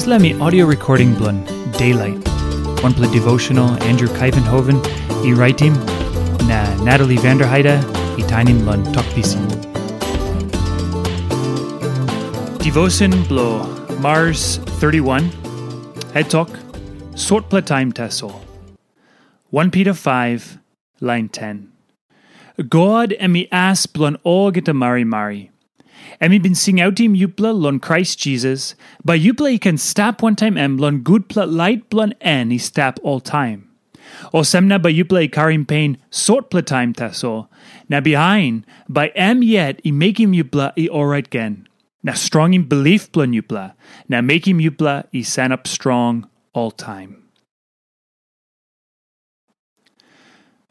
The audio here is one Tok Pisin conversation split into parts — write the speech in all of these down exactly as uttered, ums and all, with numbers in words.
Dispela mi audio recording bilong Daylight, wanpela devotional Andrew Kaivenhoven i raitim, na Natalie Vanderheide i tainim long Tok Pisin. Devotion bilong Mars thirty-one, het tok, sotpela taim tasol. One Peter five, lain ten. God em i as bilong olgeta marimari. Em i bin singautim yupela long Krais Jisas, bai yupela i ken stap wantaim em long gutpela lait bilong en i stap oltaim. Olsem na bai yupela i karim pen sotpela taim tasol, na bihain bai em yet i mekim yupela i orait gen, na strongim bilip bilong yupela, na mekim yupela i sanap strong oltaim.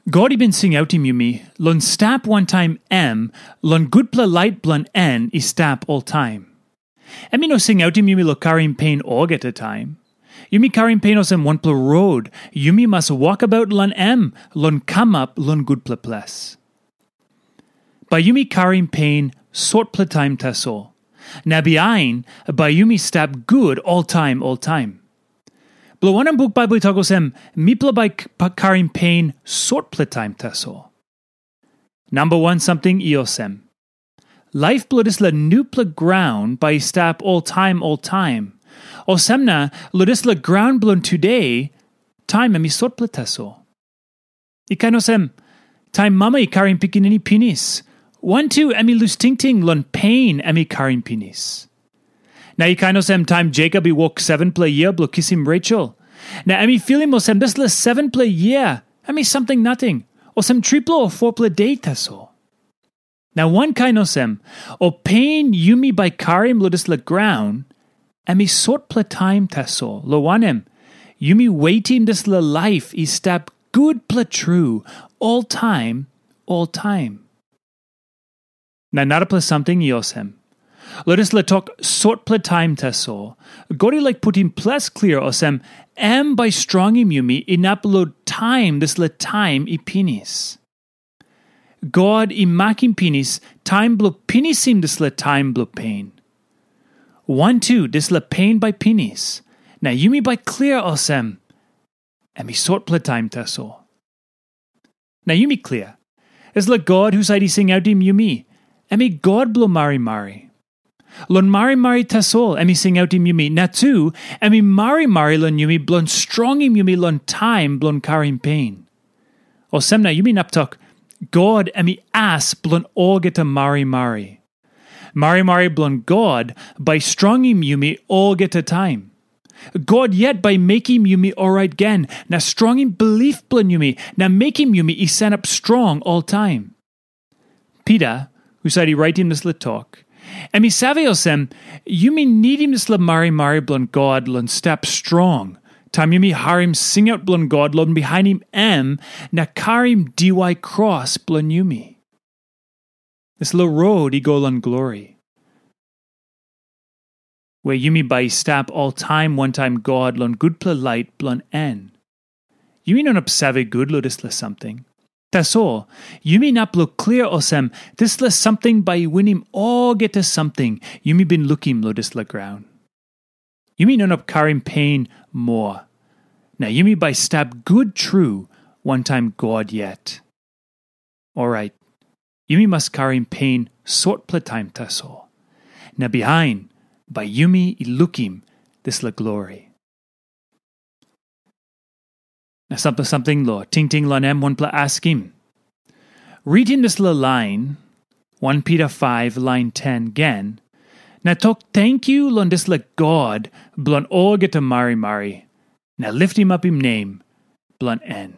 God i bin singautim yumi long stap wantaim em long gutpela lait bilong en i stap oltaim. Em i no singautim yumi long karim pen olgeta taim. Yumi karim pen olsem wanpela rod yumi mas wokabaut long em long kamap long gutpela ples. Bai yumi karim pen sotpela taim tasol, na bihain bai yumi stap gut oltaim oltaim. Bilong wanem buk Baibel i tok olsem, mipela bai k- pa- karim pen sotpela taim tasol? Namba wan samting i olsem, laip bilong dispela nupela graun bai i stap oltaim oltaim. Olsem na, long dispela graun bilong tude, taim em i sotpela tasol. I kain olsem, taim mama i karim pikinini pinis, wantu em i lus tingting long pen em i karim pinis. Na i kain olsem taim Jacob i wok sevenpela yia bilong kisim Rachel. Na em i filim olsem dispela sevenpela yia em i samting nating, olsem tripela o fopela de tasol. Na wankain olsem, ol pen yumi bai karim long dispela graun, em i sotpela taim tasol, long wanem, yumi wetim dispela laip i stap gutpela tru, oltaim, oltaim. Na narapela samting i olsem, long dispela tok sotpela taim tasol, God i laik putim ples klia olsem, em bai strongim yumi inap long taim dispela taim i pinis. God i makim pinis taim bilong pinisim dispela taim bilong pen. Wantu dispela pen bai pinis, na yumi bai klia olsem, em i sotpela taim tasol. Na yumi klia, dispela God husat i singautim yumi, em i God bilong marimari. Long marimari tasol em i singautim yumi, na tu em i marimari long yumi bilong strongim yumi long taim bilong karim pen. Olsem na yumi inap tok, God em i as bilong olgeta marimari. Marimari bilong God bai strongim yumi olgeta taim. God yet bai mekim yumi orait gen, na strongim bilip bilong yumi, na mekim yumi i sanap strong oltaim. Pita, husat i raitim dispela tok, em i save olsem, yumi nidim dispela marimari bilong God long stap strong, taim yumi harim singaut bilong God long bihainim em na karim diwai kros bilong yumi. Dispela rot i go long glori, we yumi bai i stap oltaim wantaim God long gutpela lait bilong en. Yumi no inap save gut long dispela samting. Tasol, yumi inap long klia olsem, dispela samting bai i winim olgeta samting yumi bin lukim long dispela graun. Yumi no inap karim pen moa, na yumi bai stap gut tru wantaim God yet. Orait, yumi mas karim pen sotpela taim tasol, na bihain bai yumi i lukim dispela glori. Na sampela samting long tingting long em wanpela askim. Ritim dispela lain, One Peter five lain ten gen, na tok tenkyu long dispela God bilong olgeta marimari, na liftim apim nem bilong en.